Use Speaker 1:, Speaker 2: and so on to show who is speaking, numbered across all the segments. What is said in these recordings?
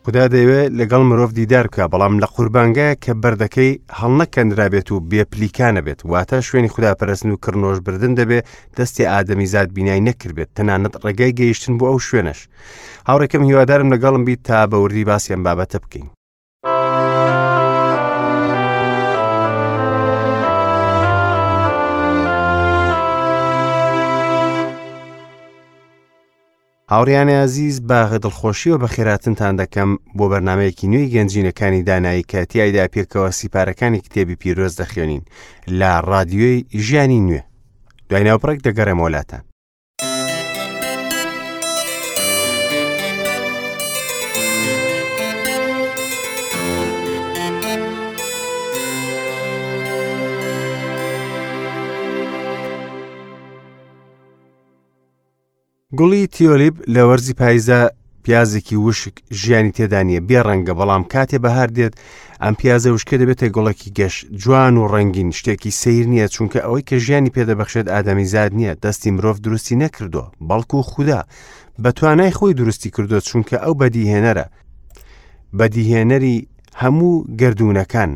Speaker 1: خودا دەیەوێت لەگەڵ مرۆڤ دیدار بکا، بەڵام لە قوربانگایەک کە بەردەکەی هەڵنەکەندرابێت و بێ پلیکانە بێت، واتە شوێنی خوداپەرستن و کڕنۆش بردن دەبێ دەستی ئادەمیزاد بینای نەکردبێت، تەنانەت ڕێگای گەیشتن بۆ ئەو شوێنەش. هاوڕێکەم هیوادارم لەگەڵم بیت تا بە وردی باسی ئەم بابەتە بکەین. هاوڕیانی ئازیز بە دڵخۆشیەوە بەخێراتنتان دەکەم بۆ بەرنمەیەکی نوێی گەنجینەکانی دانایی کە تیایدا پێکەوە سیپارەکانی کتێبی پیرۆز دەخوێنین لە ڕادیۆی ژیانی نوێ دوای ناوبڕێک دەگەڕێمەوە لاتان. گوڵی تیۆلیپ لە وەرزی پاییزدا پیازێکی وشک ژیانی تێدا نییە بێ ڕەنگە بەڵام کاتێ بەهار دێت ئەم پیازە وشکە دەبێتە گوڵێکی گەش جوان و ڕەنگین شتێکی سیر نییە چونکە ئەوەی کە ژیانی پێدەبەخشێت ئادەمیزاد نییە دەستی مرۆڤ دروستی نەکردووە بەڵکو خودا بە توانای خۆی دروستی کردووە چونکە ئەو بەدیهێنەرە بەدیهێنەری هەموو گردونەکان.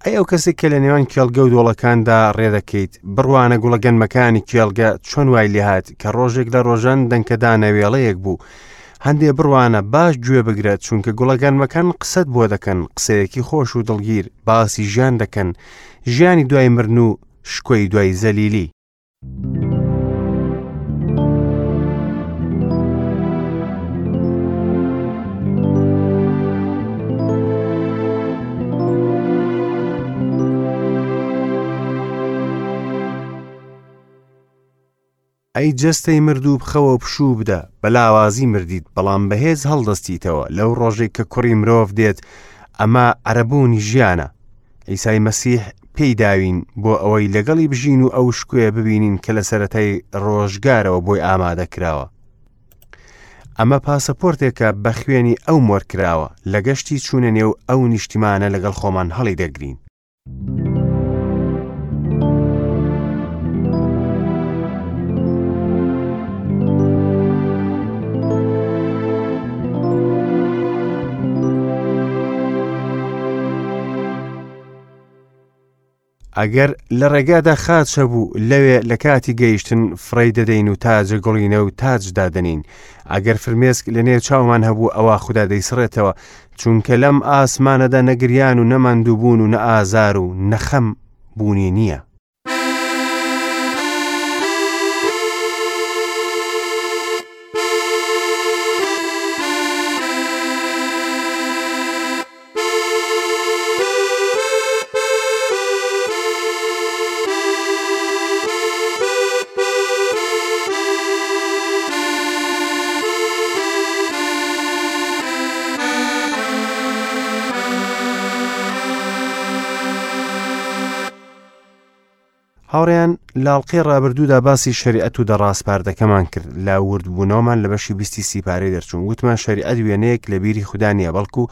Speaker 1: ئەی ئەو کەسێک کە لە نێوان کێڵگە و دۆڵەکاندا ڕێدەکەیت، بڕوانە گوڵە گەنمەکانی کێڵگە چۆن وای لێهات کە ڕۆژێک لە ڕۆژان دەنکە دانەوێڵەیەک بوو. هەندێ بڕوانە باش گوێ بگرە چونکە گوڵە گەنمەکان قسەت بۆ دەکەن، قسەیەکی خۆش و دڵگیر، باسی ژیان دەکەن، ژیانی دوای مرن و شکۆی دوای زەلیلی. ئەی جەستەی مردوو بخەوە و پشوو بدە، بە لاوازی مردیت، بەڵام بەهێز هەڵدەستیتەوە، لەو ڕۆژەی کە کوڕی مرۆڤ دێت، ئەمە عەرەبوونی ژیانە. عیسای مەسیح پێی داوین بۆ ئەوەی لەگەڵی بژین و ئەو شکۆیە ببینین کە لە سەرەتای ڕۆژگارەوە بۆی ئامادە کراوە. ئەمە پاسەپۆرتێکە بە خوێنی ئەو مۆر کراوە، لە گەشتی چوونە نێو ئەو نیشتیمانە لەگەڵ خۆمان هەڵی دەگرین. ئەگەر لە ڕێگادا خاچ هەبوو، لەوێ لە کاتی گەیشتن فڕێی دەدەین و تاجە گوڵینە و تاج دادەنین. ئەگەر فرمێسک لە نێو چاومان هەبوو، ئەوا خودا دەیسڕێتەوە، چونکە لەم ئاسمانەدا نە گریان و نە ماندووبوون و نە ئازار و نە خەم بوونی نییە. هاوڕێیان لاڵقەی ڕابردوودا باسی شەریعەت و دەڕاسپاردەکەمان کرد لە وردبوونەوەمان لە بەشی بیستی سیپارەی دەرچوون وتمان شەریعەت وێنەیەک لە بیری خودا نییە بەڵکو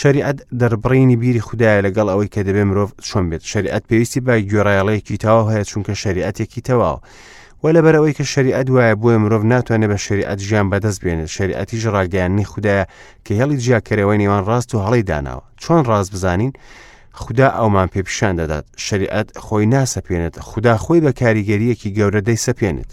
Speaker 1: شەریعەت دەربڕینی بیری خودایە لەگەڵ ئەوەی کە دەبێ مرۆڤ چۆن بێت شەریعەت پێویستی بە گوێڕایەڵێکی تەواو هەیە چونکە شەریعەتێکی تەواوە و لەبەر ئەوەی کە شەریعەت وایە بۆیە مرۆڤ ناتوانێت بە شەریعەت ژیان بەدەست بێنێت شەریعەتیش ڕاگەیاندنی خودایە کە هێڵی جیاکەرەوەی نێوان ڕاست و هەڵەی داناوە چۆن ڕاست بزانین خودا ئەومان پێ پیشان دەدات شەریعەت خۆی ناسەپێنێت خودا خۆی بە کاریگەریەکی گەورە دەیسەپێنێت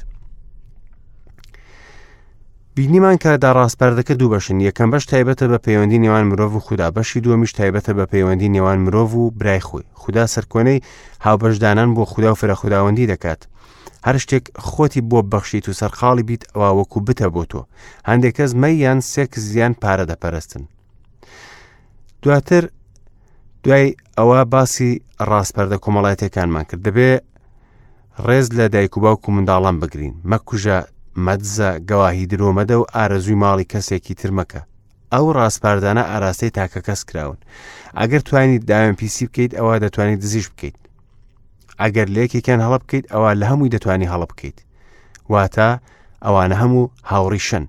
Speaker 1: بینیمان کە داڕاسپاردەکە دوو بەشن یەکەم بەش تایبەتە بە پەیوەندی نێوان مرۆڤ و خودا بەشی دووەمیش تایبەتە بە پەیوەندی نێوان مرۆڤ و برای خۆی خودا سەرکۆنەی هاوبەشدانان بۆ خودا و فرەخوداوەندی دەکات هەر شتێک خۆتی بۆ بەخشیت و سەرقاڵی بیت ئەوە وەکو بتە بۆ تۆ هەندێک کەس مەیان سێکس یان پارە دەپەرستن دواتر دوای ئەوە باسی ڕاسپەردە کۆمەڵایەتەکانمان کرد دەبێ ڕێز لە دایک و باوک و منداڵان بگرین مەکوژە مەدزە گەواهی درۆ مەدە و ئارەزووی ماڵی کەسێکی تر مەکە ئەو ڕاسپاردانە ئاراستەی تاکە کەس کراون ئەگەر توانیت داوێن پیسی بکەیت ئەوە دەتوانیت دزیش بکەیت ئەگەر لە یەکێکیان هەڵە بکەیت ئەوە لە هەمووی دەتوانی هەڵە بکەیت واتە ئەوانە هەموو هاوڕیشن.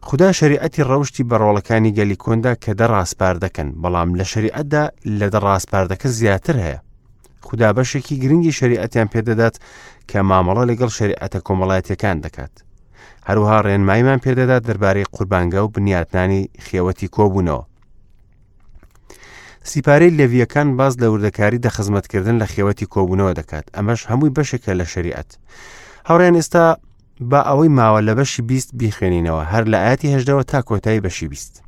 Speaker 1: خودا شەریعەتی ڕەوشتی بە ڕۆڵەکانی گەلی کۆندا کە دە ڕاسپاردەکەن، بەڵام لە شەریعەتدا لە دە ڕاسپاردەکە زیاتر هەیە. خودا بەشێکی گرنگی شەریعەتیان پێدەدات کە مامەڵە لەگەڵ شەریعەتە کۆمەڵایەتیەکان دەکات. هەروەها ڕێنماییمان پێدەدات دەربارەی قوربانگا و بنیاتنانی خێوەتی کۆبوونەوە. سیپارەی لێڤییەکان باس لە وردەکاری دە خزمەتکردن لە خێوەتی کۆبوونەوە دەکات ئەمەش هەمووی بەشێکە لە شەریعەت هاوڕێن ئێستا با ئەوەی ماوە لە بەشی 20 بیخوێنینەوە هەر لە ئاەتی هەژدەوە تا کۆتایی بەشی 20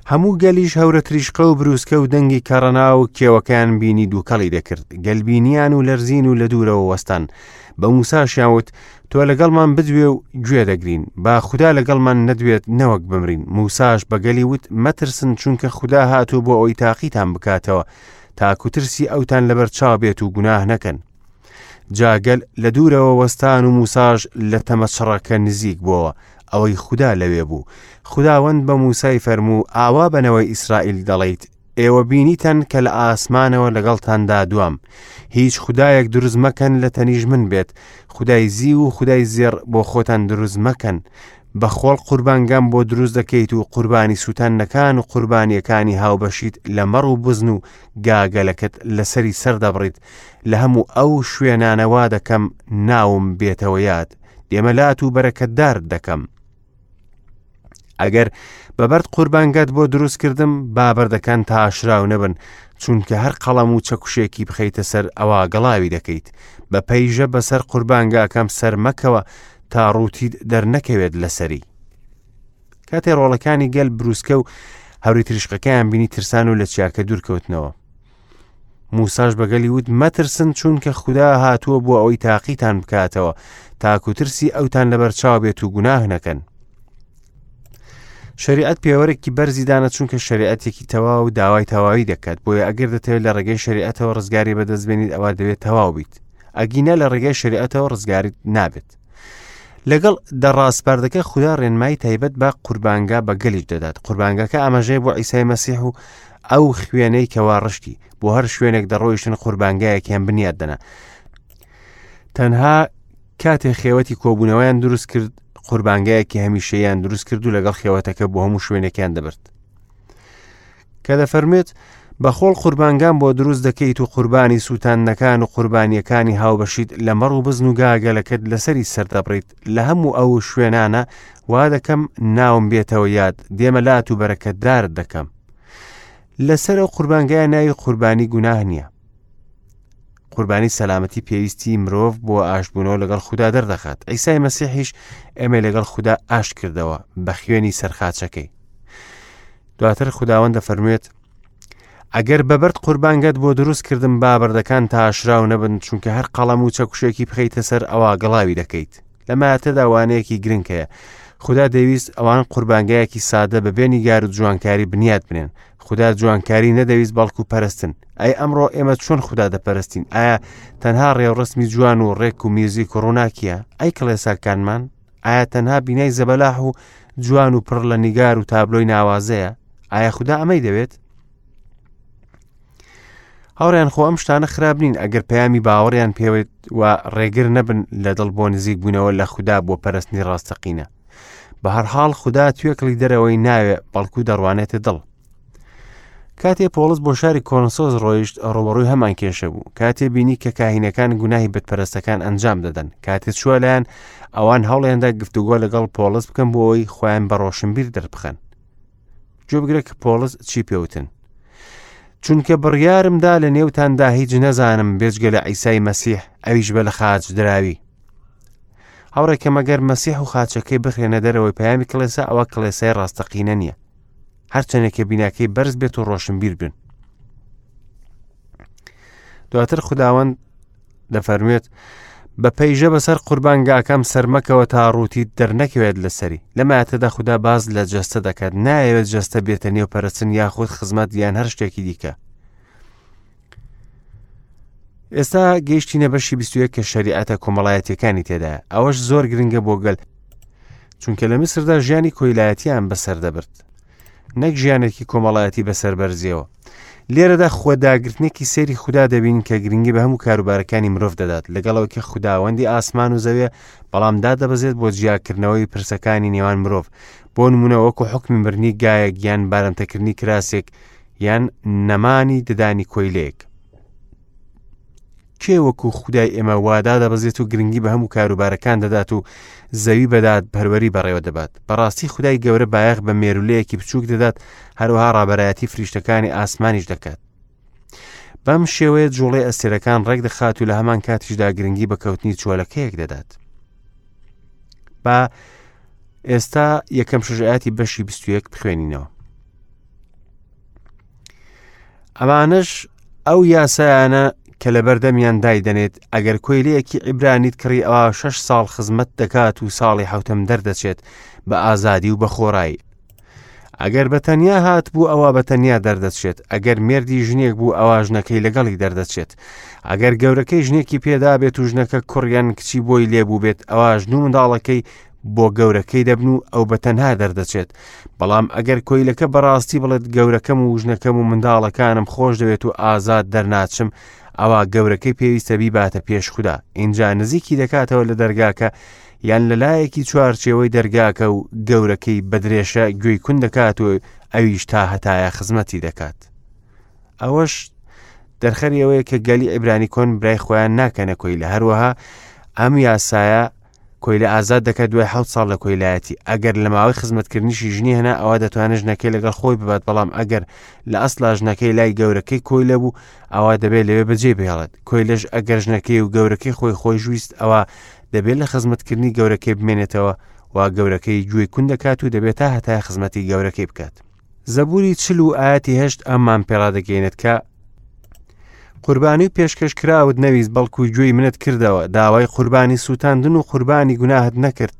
Speaker 1: هەموو گەلیش هەورە تریشقە و بروسکە و دەنگی کەڕەنا و کێوەکەیان بینی دووکەڵی دەکرد گەل بینیان و لەرزین و لە دوورەوە وەستان بە موساشیان وت تۆ لەگەڵمان بدوێ و گوێ دەگرین با خودا لەگەڵمان نەدوێت نەوەک بمرین موساش بە گەلی وت مەترسن چونکە خودا هاتوو بۆ ئەوی تاقیتان بکاتەوە تاکو ترسی ئەوتان لەبەر چاو بێت و گوناه نەکەن جا گەل لە دوورەوە وەستان و موساش لە تەمە چڕەکە نزیک بۆوە ئەوەی خودا لەوێ بوو خوداوەند بە موسای فەرموو ئاوا بە نەوەی ئیسرائیل دەڵێیت ئێوە بینیتان کە لە ئاسمانەوە لەگەڵتاندا دوام هیچ خودایەک دروست مەکەن لە تەنیش من بێت خودای زیو و خودای زێڕ بۆ خۆتان دروست مەکەن بە خۆڵ قوربانگام بۆ دروست دەکەیت و قوربانی سووتاندنەکان و قوربانیەکانی هاوبەشیت لە مەڕ و بزن و گاگەلەکەت لەسەری سەردەبڕیت لە هەموو ئەو شوێنانە وا دەکەم ناوم بێتەوە یاد دێمە لات و بەرەکەتدارت دەکەم ئەگەر بە بەرد قوربانگات بۆ دروست کردم با بەردەکان تاشراو نەبن چونکە هەر قەڵەم و چەکوشێکی بخەیتە سەر ئەوا گەڵاوی دەکەیت بە پەیژە بەسەر قوربانگاکەم سەر مەکەوە تا ڕووتیت دەرنەکەوێت لەسەری کاتێ ڕۆڵەکانی گەل بروسکە و هەوری تریشقەکەیان بینی ترسان و لە چیاکە دوورکەوتنەوە موساش بە گەلی وت مەترسن چونکە خودا هاتووە بۆ ئەوەی تاقیتان بکاتەوە تاکو ترسی ئەوتان لەبەرچاو بێت و گوناه نەکەن شریعەت پێوەرێکی بەرزی دانە چونکە شریعەتێکی تەواو و داوای تەواوی دەکات بۆیە ئەگەر دەتەوێت لە ڕێگەی شریعەتەوە ڕزگاری بەدەست بێنیت ئەوە دەبێت تەواو بیت ئەگینا لە ڕێگەی شریعەتەوە ڕزگاریت نابێت لەگەڵ دە ڕاسپاردەکە خودا ڕێنمایی تایبەت بە قوربانگا بە گەلیش دەدات قوربانگاکە ئاماژەیە بۆ عیسای مەسیح و ئەو خوێنەی کەوا ڕشتی بۆ هەر شوێنێک دەڕۆیشتن قوربانگایەکیان بنیاد دەنا تەنها کاتێ خێوەتی کۆبوونەوەیان دروست کرد قوربانگایەکی هەمیشەیان دروست کرد و لەگەڵ خێوەتەکە بۆ هەموو شوێنێکیان دەبرد کە دەفەرموێت، بە خۆڵ قوربانگام بۆ دروست دەکەیت و قوربانی سووتاندنەکان و قوربانییەکانی هاوبەشیت لە مەڕ و بزن و گاگەلەکەت لەسەری سەردەبڕیت، لە هەموو ئەو شوێنانە وا دەکەم ناوم بێتەوە یاد، دێمە لات و بەرەکەتدارت دەکەم. لەسەر ئەو قوربانگایە ناوی قوربانی گوناه نییە. قوربانی سەلامەتی پێویستی مرۆڤ بۆ ئاشتبوونەوە لەگەڵ خودا دەردەخات. عیسای مەسیحیش ئێمەی لەگەڵ خودا ئاشت کردەوە بە خوێنی سەرخاچەکەی. دواتر خوداوەند دەفەرموێت ئەگەر بە بەرد قوربانگەت بۆ دروست کردم با بەردەکان تاشراو نەبن چونکە هەر قەڵەم و چەکوشێکی بخەیتە سەر ئەوا گڵاوی دەکەیت لە ماتەدا وانەیەکی گرنگ هەیە خودا دەویست ئەوان قوربانگایەکی سادە بە بێ نیگار و جوانکاری بنیات بنێن خودا جوانکاری نەدەویست بەڵکو پەرستن ئەی ئەمڕۆ ئێمە چۆن خودا دەپەرستین ئایا تەنها ڕێوڕسمی جوان و ڕێک و میوزیک و ڕووناکیە ئەی کڵێساکانمان ئایا تەنها بینای زەبەلاح و جوان و پڕ لە نیگار و تابلۆی ناوازەیە ئایا خودا ئەمەی دەوێت هاوڕیان خۆ ئەم شتانە خراپ نین ئەگەر پەیامی باوەڕیان پێوێت و ڕێگر نەبن لە دڵ بۆ نزیک بوونەوە لە خودا بۆ پەرستنی ڕاستەقینە بە هەرحاڵ خودا توێکڵی دەرەوەی ناوێ بەڵکو دەڕوانێتە دڵ کاتێ پۆڵس بۆ شاری کۆرنسۆس ڕۆیشت ڕوبەڕووی هەمان کێشە بوو کاتێ بینی کە کاهینەکان گوناهی بتپەرستەکان ئەنجام دەدەن کاتێ چووە لایەن ئەوان هەوڵیاندا گفتوگۆ لەگەڵ پۆڵس بکەن بۆ ئەوەی خۆیان بە ڕۆشنبیر دەربخەن گوێبگرە کە پۆڵس چی پێوتن چونکە بڕیارمدا لە نێوتاندا هیچ نەزانم بێجگە لە عیسای مەسیح ئەویش بە لە خاچ دراوی هاوڕێکە مەگەر مەسیح و خاچەکەی بخرێنە دەرەوەی پەیامی کڵێسا ئەوە کڵێسای ڕاستەقینە نییە هەرچەندێک کە بیناکەی بەرز بێت و ڕۆشنبیر بن دواتر خداوەند دەفەرموێت بە پەیژە بەسەر قوربانگاکەم سەرمەکەوە تا ڕووتیت دەرنەکەوێت لەسەری لە ماتەدا خودا باز لە جەستە دەکات نایەوێت جەستە بێتە نێو پەرستن یاخود خزمەت یان هەر شتێکی دیکە ئێستا گەیشتینە بەشی 21 کە شەریعەتە کۆمەڵایەتیەکانی تێدایە ئەوەش زۆر گرنگە بۆ گەل چونکە لە میسردا ژیانی کۆیلایەتیان بەسەر دەبرد نەک ژیانێکی کۆمەڵایەتی بەسەر بەرزیەوە. لێرەدا خۆداگرتنێکی سەیری خودا دەبینین کە گرنگی بە هەموو کاروبارەکانی مرۆڤ دەدات، لەگەڵ ئەوەی کە خوداوەندی ئاسمان و زەویە، بەڵام دادەبەزێت بۆ جیاکردنەوەی پرسەکانی نێوان مرۆڤ، بۆ نمونە وەکو حوکمی مردنی گایەک یان بارمتەکردنی کراسێک یان نەمانی ددانی کۆیلەیەک. کێ وەکو خودای ئێمە وا دادەبەزێت و گرنگی بە هەموو کاروبارەکان دەدات و زەوی بە دادپەروەری بەڕێوە دەبات؟ بەڕاستی خودای گەورە بایەخ بە مێرولەیەکی بچووک دەدات، هەروەها ڕابەرایەتی فریشتەکانی ئاسمانیش دەکات. بەم شێوەیە جوڵەی ئەستێرەکان ڕێک دەخات و لە هەمان کاتیشدا گرنگی بە کەوتنی چۆلەکەیەک دەدات. با ئێستا یەکەم شەش ئاەتی بەشی 21 بخوێنینەوە. ئەمانەش ئەو یاسایانە کە لەبەردەمیان دایدەنێت، ئەگەر کۆیلەیەکی عیبرانیت کڕی ئەوا شەش ساڵ خزمەت دەکات و ساڵی حەوتەم دەردەچێت بە ئازادی و بە خۆڕایی. ئەگەر بە تەنیا هات بوو ئەوا بە تەنیا دەردەچێت، ئەگەر مێردی ژنێک بوو ئەوا ژنەکەی لەگەڵی دەردەچێت. ئەگەر گەورەکەی ژنێکی پێدا بێت و ژنەکە کوڕ یان کچی بۆی لێبوو بێت ئەوا ژن و منداڵەکەی بۆ گەورەکەی دەبن و ئەو بە تەنها دەردەچێت. بەڵام ئەگەر کۆیلەکە بەڕاستی بڵێت گەورەکەم و ژنەکەم و منداڵەکانم خۆش دەوێت و ئازاد دەرناچم، ئەوا گەورەکەی پێویستە بیباتە پێش خودا، ئینجا نزیکی دەکاتەوە لە دەرگاکە یان لە لایەکی چوارچێوەی دەرگاکە و گەورەکەی بە درێشە گوێی کون دەکات و ئەویش تا هەتایە خزمەتی دەکات. ئەوەش دەرخەری ئەوەیە کە گەلی عیبرانی کۆن برای خۆیان ناکەنە کۆیلە. هەروەها ئەم یاسایە کۆیلە ئازاد دەکات دوای حەوت ساڵ لە کۆیلایەتی. ئەگەر لە ماوەی خزمەتکردنیشی ژنی هێنا ئەوا دەتوانێت ژنەکەی لەگەڵ خۆی ببات، بەڵام ئەگەر لە ئەسڵا ژنەکەی لای گەورەکەی کۆیلە بوو ئەوا دەبێت لەوێ بەجێ بهێڵێت. کۆیلەش ئەگەر ژنەکەی و گەورەکەی خۆی خۆش ویست ئەوا دەبێت لە خزمەتکردنی گەورەکەی بمێنێتەوە و گەورەکەی گوێی کون دەکات و دەبێت تا هەتای خزمەتی گەورەکەی بکات. زەبوری 40 و ئایەتی 8 ئەممان پێڕادەگەیەنێت کە قوربانی و پێشکەش کراوت نەویست بەڵکو گوێی منت کردەوە، داوای قوربانی سووتاندن و قوربانی گوناهت نەکرد.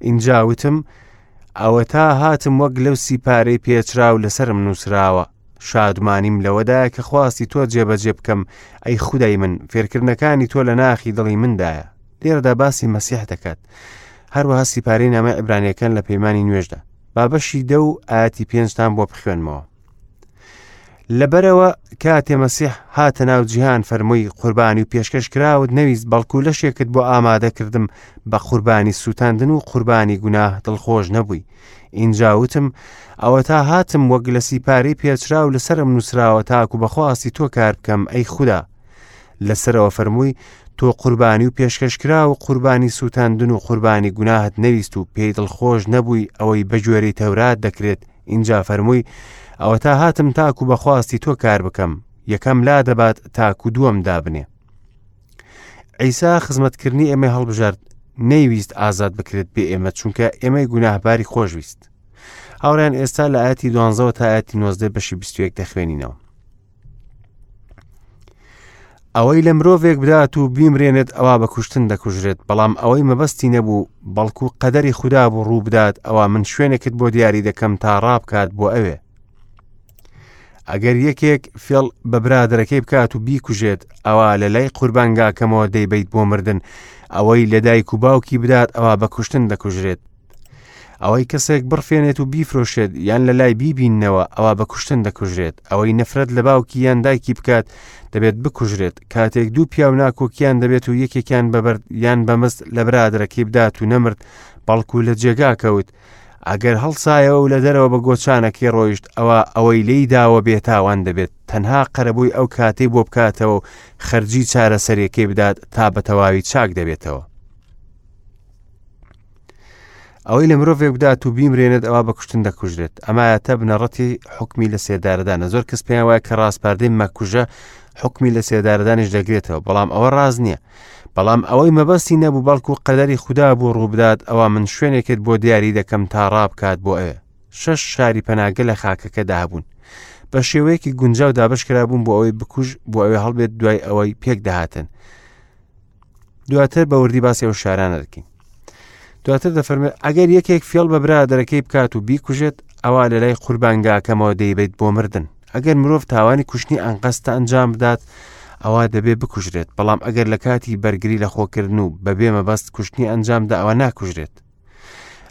Speaker 1: ئینجا وتم ئەوەتا هاتم وەک لەو سیپارەی پێچراو لەسەرم نووسراوە، شادمانیم لەوەدایە کە خواستی تۆ جێبەجێ بکەم، ئەی خودای من، فێرکردنەکانی تۆ لە ناخی دڵی مندایە. لێرەدا باسی مەسیح دەکات، هەروەها سیپارەی نامەی عیبرانیەکان لە پەیمانی نوێژدا. با بەشی 10 و ئایەتی 5تان بۆ بخوێنمەوە. لەبەرەوە کاتێ مەسیح هاتە ناو جیهان فەرمووی قوربانی و پێشکەش کراوت نەویست بەڵکو لەشێکت بۆ ئامادە کردم، بە قوربانی سووتاندن و قوربانی گوناه دڵخۆش نەبووی. ئینجا وتم ئەوەتا هاتم وەک لە سیپارەی پێچراو لەسەرم نووسراوە تاکو بە خواستی تۆ کار بکەم ئەی خودا. لەسەرەوە فەرمووی تۆ قوربانی و پێشکەشکراو و قوربانی سووتاندن و قوربانی گوناهت نەویست و پێی دڵخۆش نەبووی ئەوەی بە گوێرەی تەورات دەکرێت. ئینجا فەرمووی ئەوەتا هاتم تاکو بە خواستی تۆ کار بکەم، یەکەم لا دەبات تاکو دووەم دابنێ. عیسا خزمەتکردنی ئێمەی هەڵبژارد، نەیویست ئازاد بکرێت بێ ئێمە، چونکە ئێمەی گوناهباری خۆشویست. هاوڕێیان ئێستا لە ئاەتی دوانزەوە تا ئاەتی 19 بەشی 21 دەخوێنینەوە. ئەوەی لە مرۆڤێک بدات و بیمرێنێت ئەوا بە کوشتن دەکوژرێت، بەڵام ئەوەی مەبەستی نەبوو بەڵکو قەدەری خودا بوو ڕوو بدات ئەوا من شوێنێکت بۆ دیاری دەکەم تا ڕابکات بۆ ئەوێ. ئەگەر یەکێک فێڵ بە برادەرەکەی بکات و بیکوژێت ئەوا لە لای قوربانگاکەمەوە دەیبەیت بۆ مردن، ئەوەی لە دایک و باوکی بدات ئەوا بە کوشتن دەکوژرێت. ئەوەی کەسێک بڕفێنێت و بیفرۆشێت یان لە لای بیبیننەوە ئەوا بە کوشتن دەکوژرێت. ئەوەی نەفرەت لە باوکی یان دایکی بکات دەبێت بکوژرێت. کاتێک دوو پیاو ناکۆکیان دەبێت و یەکێکیان بە بەرد یان بە مست لە برادەرەکەی بدات و نەمرد بەڵکو لە جێگا کەوت، ئەگەر هەڵسایەوە و لە دەرەوە بە گۆچانەکەی ڕۆیشت ئەوا ئەوەی لێی داوە بێتاوان دەبێت، تەنها قەرەبووی ئەو کاتەی بۆ بکاتەوە و خەرجی چارەسەریەکەی بدات تا بە تەواوی چاک دەبێتەوە. ئەوەی لە مرۆڤێک بدات و بیمرێنێت ئەوا بە کوشتن دەکوژرێت. ئەمایەتە بنەڕەتی حکمی لە سێدارەدانە. زۆر کەس پێیان وایە کە ڕاسپاردەی مەکوژە حکمی لە سێدارەدانیش دەگرێتەوە، بەڵام ئەوە ڕاست نییە. بەڵام ئەوەی مەبەستی نەبوو بەڵکو قەدەری خودا بوو ڕووبدات ئەوا من شوێنێکت بۆ دیاری دەکەم تا ڕابکات بۆ ئەوێ. 6 شاری پەناگە لە خاکەکەدا هەبوون. بە شێوەیەکی گونجاو دابەشکرابوون بۆ ئەوەی بکوژ بۆ ئەوێ هەڵبێت دوای ئەوەی پێک دەهاتن. دواتر بە وردی باسی ئەو شارانە دەکەین. دواتر دەفەرمێت ئەگەر یەکێک فێڵ بە برادەرەکەی بکات و بیکوژێت ئەوا لە لای قوربانگاکەمەوە دەیبەیت بۆ مردن. ئەگەر مرۆڤ تاوانی کوشتنی ئەنقەستە ئەنجام بدات ئەوا دەبێ بکوژرێت، بەڵام ئەگەر لە کاتی بەرگری لە خۆکردن و بەبێ مەبەست کوشتنی ئەنجامدا ئەوە ناکوژرێت.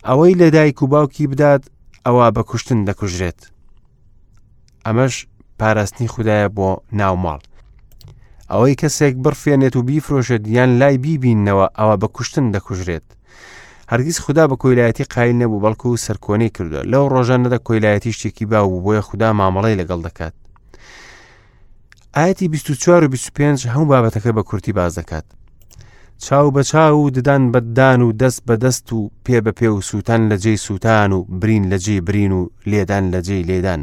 Speaker 1: ئەوەی لە دایک و باوکی بدات ئەوا بە کوشتن دەکوژرێت. ئەمەش پاراستنی خودایە بۆ ناو ماڵ. ئەوەی کەسێک بڕفێنێت و بیفرۆشێت یان لای بیبیننەوە ئەوە بە کوشتن دەکوژرێت. هەرگیز خودا بە کۆیلایەتی قایل نەبوو بەڵکو سەرکۆنەی کردووە. لەو ڕۆژانەدا کۆیلایەتی شتێکی باو بوو بۆیە خودا مامەڵەی لەگەڵ دەکات. ئایەتی 24 و 25 هەموو بابەتەکە بە کورتی باس دەکات. چاو بە چاو و ددان بە ددان و دەست بە دەست و پێ بە پێ و سووتان لە جێی سووتان و برین لە جێی برین و لێدان لە جێی لێدان.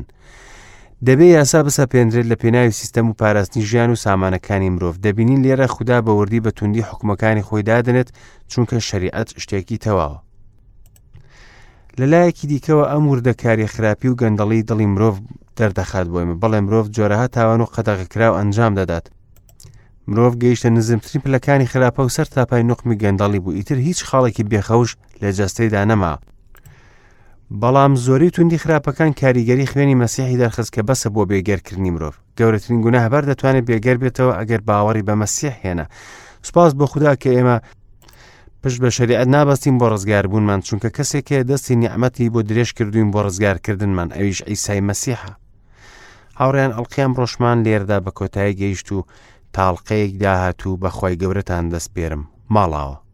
Speaker 1: دەبێ یاسا بسەپێنرێت لە پێناوی سیستەم و پاراستنی ژیان و سامانەکانی مرۆڤ. دەبینین لێرە خودا بە وردی بە توندی حوکمەکانی خۆی دادەنێت چونکە شەریعەت شتێکی تەواوە. لە لایەکی دیکەوە ئەم وردەکاریە خراپی و گەندەڵی دڵی مرۆڤ دەردەخات بۆ ئێمە. بەڵێ مرۆڤ جۆرەها تاوان و قەدەغەکراو ئەنجام دەدات. مرۆڤ گەیشتە نزمترین پلەکانی خراپە و سەر تاپای نوقمی گەندەڵی بوو ئیتر هیچ خاڵێکی بێخەوش لە جەستەیدا نەما. بەڵام زۆری توندی خراپەکان کاریگەری خوێنی مەسیحی دەرخست کە بەسە بۆ بێگەرکردنی مرۆڤ. گەورەترین گوناهبار دەتوانێت بێگەر بێتەوە ئەگەر باوەڕی بە مەسیح هێنا. سوپاس بۆ خودا کە ئێمە پشت بە شەریعەت نابەستین بۆ ڕزگاربوونمان چونکە کەسێک هەیە دەستی نیعمەتی بۆ درێژ کردوین بۆ ڕزگارکردنمان ئەویش عیسای مەسیحە. هاوڕێیان ئەڵقەی ئەمڕۆشمان لێرەدا بە کۆتایی گەیشت و تاڵقەیەک داهاتوو بەخوای گەورەتان دەسپێرم. ماڵاوە.